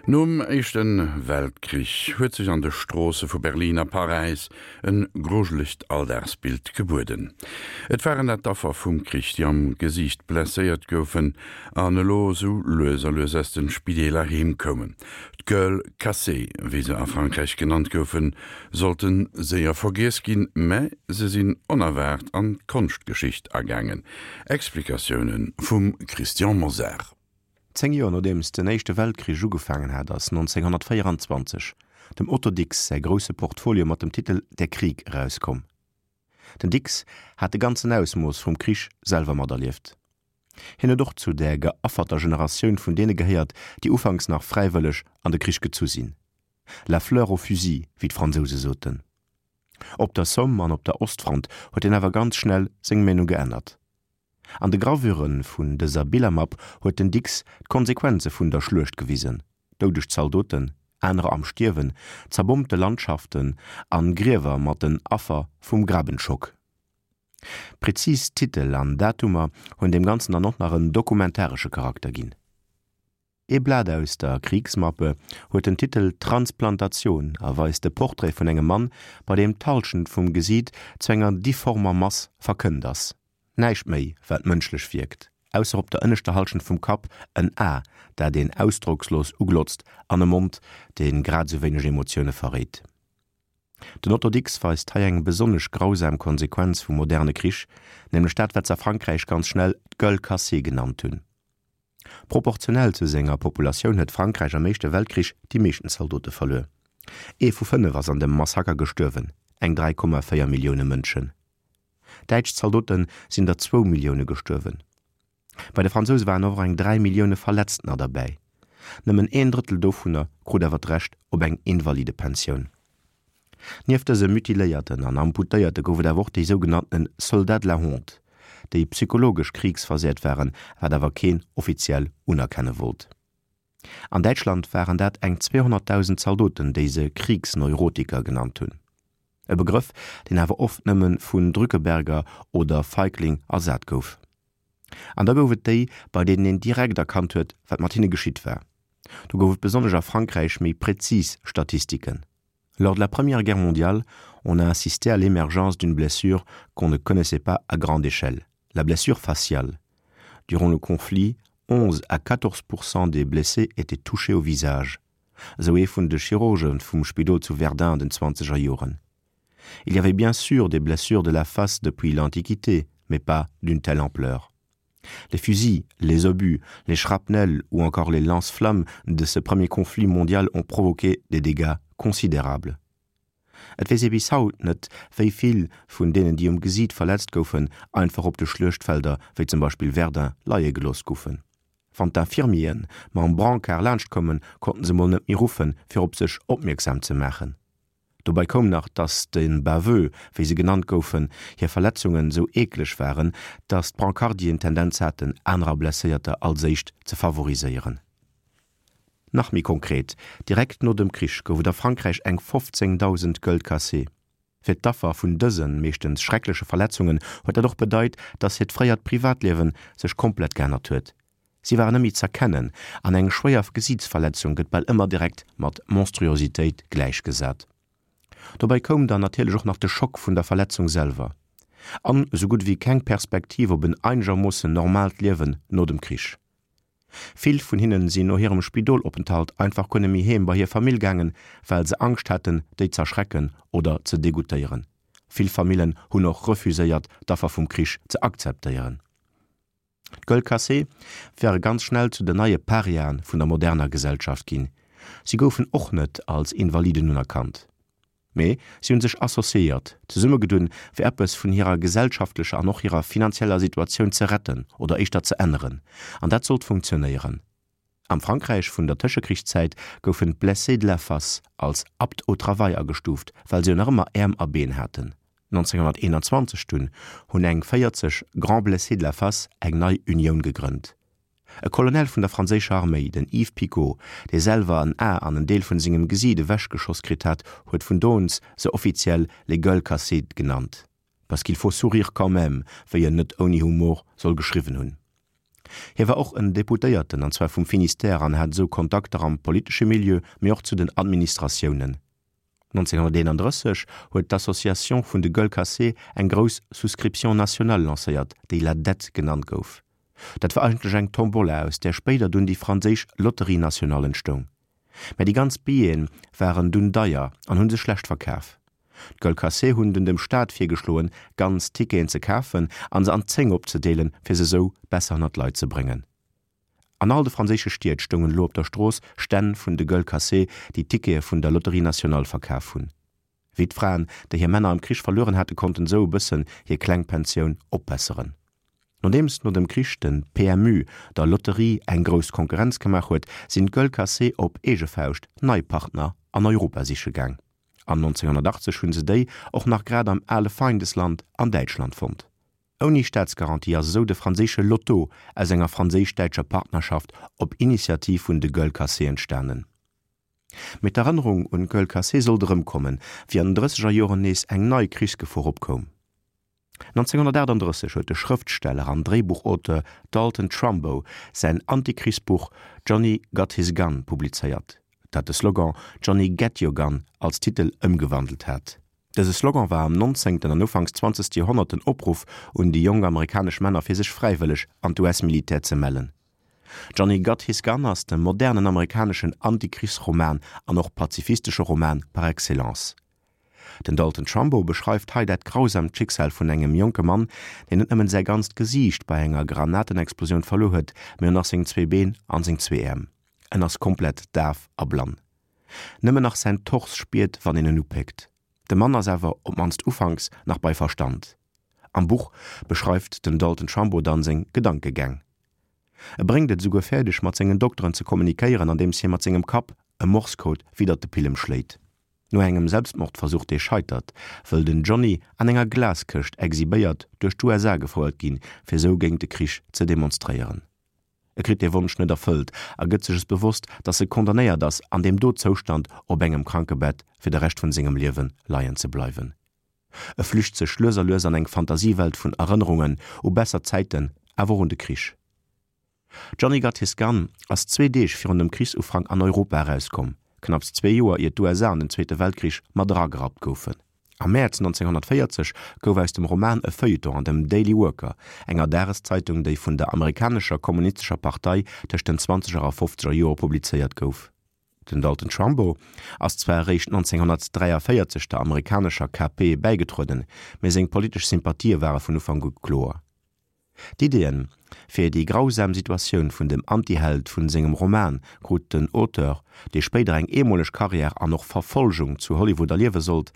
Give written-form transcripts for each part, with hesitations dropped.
Nom Éischte Weltkrich huet sech an de Stroosse vu Berlin a Paräis e grujelegt Alldagsbild gebueden. Et waren dat d'Affer vum Krich, déi am Gesiicht blesséiert goufen an elo sou lues a lues aus de Spideeler heem koumen. D'Gueules cassées, wéi se a Frankräich genannt goufen, sollte séier vergiess ginn, mä se sinn onerwaart an d'Konschtgeschicht agaangen. Explikatioune vum Christian Mosar. Zéng Joer nodeems den Éischte Weltkrich ugefaangen hat, ass 1924 dem Otto Dix säi grousse Portfolio mat dem Titel Der Krieg erauskomm. Den Dix hat de ganzen Ausmooss vum Krich selwer materlieft. Hien huet och zu där geafferter Generatioun vun deene gehéiert, déi ufanks nach fräiwëlleg an de Krich gezu sinn, la fleur au fusil, wéi d'Fransouse soten. Op der Somme an op der Ostfront huet hien awer ganz schnell seng Meenung geännert. An de Gravure vun dëser Billermapp huet den Dix d'Konsequenze vun der Schluecht gewisen, doudeg Zaldoten, anerer am Stierwen, zerbommte Landschaften an Griewer mat den Affer vum Grabenschock. Prezis Titel an Datumer hunn deem Ganzen dann och nach en dokumentaresche Charakter ginn. Ee Blat aus der Kriegsmappe huet den Titel Transplantation a weist de Portrait vun engem Mann, bei deem d'Hallschent vum Gesiit zu enger difformer Mass verkënnt ass. Näischt méi, wat mënschlech wierkt, ausser op der ënneschter Hallschent vum Kapp en A, dat een ausdrockslos uglotzt, an e Mond, dee grad esou wéineg Emotioune verréit. Den Otto Dix weist hei eng besonnesch grausam Konsequenz vum moderne Krich, nämlech dat, wat s'a Frankräich ganz schnell d'Gueule cassée genannt hunn. Proportionell zu senger Populatioun huet Frankräich am Éischte Weltkrich déi meeschten Zaldote verluer. Ee vu 5 ass an dem Massaker gestuerwen, eng 3,4 Millioune Mënschen. Däitsch Zaldote sinn der zwou Millioune gestuerwen. Bei de Fransouse waren och eng 3 Millioune Verletztener derbäi. Nëmmen een Drëttel dovunner krut awer d'Recht op eng Invalidepensioun. Nieft dëse Mutiléierten an Amputéierte gouf et awer och déi sougenannten Soldats de la honte, déi psychologesch kriegsversehrt waren, wat awer keen offiziell unerkenne wollt. An Däitschland waren dat eng 200.000 Zaldoten, déi se Kriegsneurotiker genannt hunn. E Begrëff, deen awer oft nëmme vun Drückeberger oder Feigling ersat gouf. An da gouf et déi, bei deenen een direkt erkannt huet, wat mat hinne geschitt war. Do gouf et besonnesch a Frankräich méi prezis Statistiken. Lors de la Première Guerre mondiale, on a assisté à l'émergence d'une blessure qu'on ne connaissait pas à grande échelle, la blessure faciale. Durant le conflit, 11 à 14 Prozent des blessés étaient touchés au visage. Esou ee vun de Chirurge vum Spidol zu Verdun an den zwanzeger Joren. Il y avait bien sûr des blessures de la face depuis l'Antiquité, mais pas d'une telle ampleur. Les fusils, les obus, les shrapnels ou encore les lance-flammes de ce premier conflit mondial ont provoqué des dégâts considérables. Et weess ee bis haut net, wéi vill vun deenen, déi um Gesiit verletzt goufen, einfach op de Schluechtfelder, wéi zum Beispill Verdun, leie gelooss goufen. Wann d'Infirmieren mam Brancard laanscht koumen, konnten se mol net méi ruffen, fir op sech opmierksam ze maachen. Dobei koum nach, dass de Baveux, wéi se genannt goufen, hir Verletzungen sou eekleg waren, dass d'Brancardien d'Tendenz haten, anerer Blesséierter als éischt ze favoriséieren. Nach méi konkret, Direkt no dem Krich gouf et a Frankräich eng 15.000 Gueules cassées. Fir d'Affer vun dësen, meeschtens schreckleche Verletzungen huet dat och bedeit, dass hiert fréiert Privatliewen sech komplett geännert huet. Si waren net méi z'erkennen an eng schwéier Gesiitsverletzung gëtt bal ëmmer direkt mat Monstruositéit gläichgesat. Dobäi koum dann natierlech och nach de Schock vun der Verletzung selwer an esou gutt ewéi keng Perspektiv op en einegermoossen normaalt Liewen no dem Krich. Vill vun hinnen sinn no hirem Spidolopenthalt einfach guer net méi heem bei hir Famill gaangen, well se Angscht haten, déi z'erschrecken oder ze degoutéieren. Vill Famillen hunn och refuséiert, d'Affer vum Krich ze akzeptéieren. D'Gueule cassée ware ganz schnell zu den neie Pariaen vun der moderner Gesellschaft ginn. Si goufen och net als Invaliden unerkannt, mee si hunn sech associéiert, zesummegedunn, fir eppes vun hirer gesellschaftlecher an och hirer finanzieller Situatioun ze retten oder éischter ze änneren. An dat sollt funktionéieren. Am Frankräich vun der Tëschekrichszäit goufen d'Blessés de la face als aptes au travail agestuuft, well se jo nach ëmmer Äerm a Been haten. 1921 dunn hunn eng 40 Grands Blessés de la face eng nei Unioun gegrënnt. E Colonel vun der franséischer Arméi, den Yves Picot, dee selwer en A an en Deel vun sengem Gesiit ewechgeschoss kritt hat, huet vun do un se offiziell les gueules cassées genannt. Parce qu'il faut sourire quand même, wéi en net ouni Humor soll geschriwwen hunn. Hie war och en Deputéierten, an zwar vum Finistère, an hat esou Kontakter am politesche Milieu, mee och zu den Administratiounen. 1931 huet d'Association vun de Gueules cassées eng grouss Souscription nationale lancéiert, déi La Dette genannt gouf. Dat war eigentlech eng Tombola, aus där spéider dunn déi franséisch Loterie nationale entstoung. Mä déi ganz Billete waren dunn deier an hu sech schlecht verkaf. D'Gueules cassées hunn dunn dem Staat virgeschloen, ganz Ticketen ze kafen an se an 10 opzedeelen, fir se sou besser ënner d'Leit ze bréngen. An all de franséische Stied stoungen elo op der Strooss Stänn vun de Gueules cassées, déi Tickete vun der Loterie nationale verkaf hunn. Wittfraen, déi hir Männer am Krich verlueren haten, konnten esou e bëssen hir kleng Pensioun opbesseren. Nodeems no dem Krich de PMU der Lotterie eng grouss Konkurrenz gemaach huet, sinn d'Gueules Cassées op eege Fauscht nei Partner an Europa siche gaang. An 1980 hunn se déi och nach grad am ale Feindesland an Däitschland fonnt. Ouni Staatsgarantie ass esou de franséische Lotto aus enger franséisch-däitscher Partnerschaft op Initiativ vun de Gueules Cassées entstanen. Mee d'Erënnerung un d'Gueule cassée sollt erëmkommen, wéi an den drësseger Joren nees eng nei Krichsgefor opkoum. 1938 huet de Schrëftsteller an Dréibuchauteur Dalton Trumbo säin Antikrichsbuch Johnny Got His Gun publizéiert, dat de Slogan Johnny Get Your Gun als Titel ëmgewandelt hat. Dëse Slogan war am nonzéngten an ufanks zwanzegste Joerhonnert den Opruff un déi jonk amerikanesch Männer fir sech fräiwëlleg an d'US-Militär ze mellen. Johnny Got His Gun ass de modernen amerikaneschen Antikrichsroman an och pazifistesche Roman par excellence. Den Dalton Trumbo beschreift hei dat grausamt Schicksal vun engem jonke Mann, deen net nëmmen säi ganzt Gesiicht bei enger Granatenexplosioun verluer huet, mee och nach seng zwee Been an seng zwee Äerm. En ass komplett daf a blann. Nëmmen nach säin Tors spiert, wann een en upéckt. De Mann ass awer, op d'mannst ufanks, nach bei Verstand. Am Buch beschreift den Dalton Trumbo dann seng Gedankegäng. E bréngt et esouguer fäerdeg mat sengen Dokteren ze kommunikéieren andeems hie mat sengem Kapp e Morse-Code widdert de Pillem schléit. No engem Selbstmordversuch dee scheitert, wëll den Johnny an enger Glaskëscht exhibéiert duerch d'USA gefouert ginn, fir sou géint de Krich ze demonstréieren. E kritt dee Wonsch net erfëllt a gëtt sech es bewosst, dass e condamnéiert ass an deem do Zoustand op engem Krankebett fir de Rescht vun sengem Liewe leien ze bleiwen. E flücht sech lues a lues an eng Fantasiewelt vun Erënnerungen u besser Zäiten, awer och un de Krich. Johnny Got His Gun ass zwee Deeg virun dem Krichsufrank an Europa erauskomm, knapps zwee Joer ier d'USA an den Zweete Weltkrich mat eragerappt goufen. Am Mäerz 1940 gouf aus dem Roman e Feuilleton an dem Daily Worker, enger Dageszeitung, déi vun der amerikanescher Kommunistescher Partei tëscht den zwanzeger a fofzeger Jore publizéiert gouf. Den Dalton Trumbo ass zwar eréischt 1943 der amerikanescher KP bäigetrueden, mee seng politesch Sympathië ware vun Ufank u kloer. D'Iddien fir déi grausam Situatioun vun dem Antiheld vun sengem Roman krut den Auteur, dee spéider eng eemoleg Karriär an och Verfolgung zu Hollywood erliewe sollt,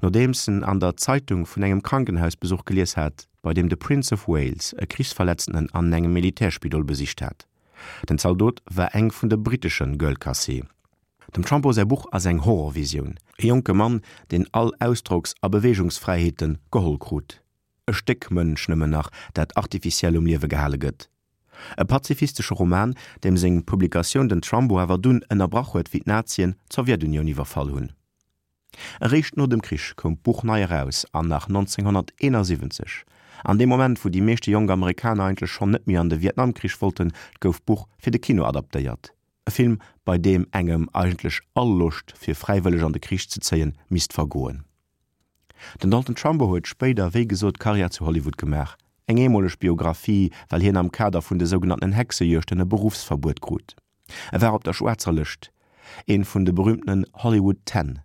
nodeems en an der Zeitung vun engem Krankenhausbesuch gelies hat, bei deem de Prince of Wales e Krichsverletztenen an engem Militärspidol besicht hat. Den Zaldot war eng vun de brittesche Gueules cassées. Dem Trumbo säi Buch ass eng Horrorvisioun, e jonke Mann, deen all Ausdrocks a Beweegungsfräiheete geholl krut. E Stéck Mënsch nëmmen nach, dat artificiell um Liewe gehale gëtt. E pazifistesche Roman, deem seng Publikatioun den Trumbo awer dunn ënnerbrach huet, wéi d'Nazien d'Sowjetunioun iwwerfall hunn. Eréischt no dem Krich koum d'Buch nei eraus an nach 1971, an deem Moment wou déi meeschte jonk Amerikaner eigentlech schonn net méi an de Vietnamkrich wollten, gouf d'Buch fir de Kino adaptéiert. E Film bei deem engem eigentlech all Loscht fir fräiwëlleg an de Krich ze zéien misst vergoen. Den Dalton Trumbo huet spéider wéi gesot Karriär zu Hollywood gemaach. Eng eemoleg Biographie well hien am Kader vun de sougenannten Hexejuegten e Beruffsverbuet krut. E war op der schwaarzer Lëscht, een vun de berühmtenen Hollywood Ten.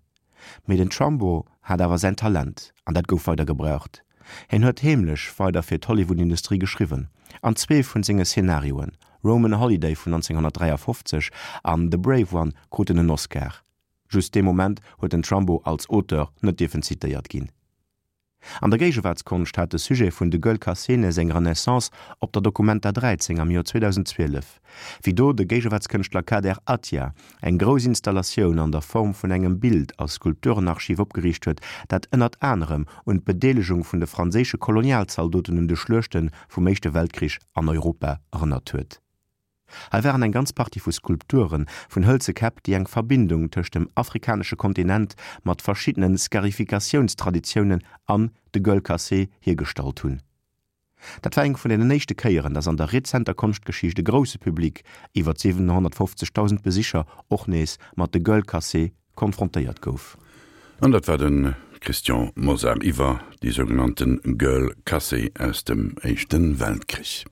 Mee den Trumbo hat awer säin Talent, an dat gouf weider gebraucht. Hien huet heemlech weider fir d'Hollywood-Industrie geschriwwen, an zwee vun senge Szenarioen, Roman Holiday vun 1953 an The Brave One, kruten en Oscar. Just dee Moment huet den Trumbo als Auteur net dierfen zitéiert ginn. An der Géigewaartskonscht hat de Sujet vun de Gueules cassées seng Renaissance op der Documenta 13 am Joer 2012, wéi do de Géigewaartskënschtler Kader Attia eng grouss Installatioun an der Form vun engem Bild a Skulpturenarchiv opgeriicht huet, dat ënnert anerem un d'Bedeelegung vun de franséische Kolonialzaldoten un de Schluechte vum Éischte Weltkrich an Europa erënnert huet. Hei waren eng ganz Partie vu Skulpture vun hëlze Käpp, déi eng Verbindung tëscht dem afrikanesche Kontinent mat verschiddene Scarificatiounstraditiounen an de Gueules cassées hiergestallt hunn. Dat war eng vun deenen éischte Kéieren, datt an der rezenter Konschtgeschicht e grousse Public, iwwer 750.000 Besicher, och nees mat de Gueules cassées konfrontéiert gouf. An dat war de Christian Mosar iwwer déi sougenannte Gueules cassées aus dem Éischte Weltkrich.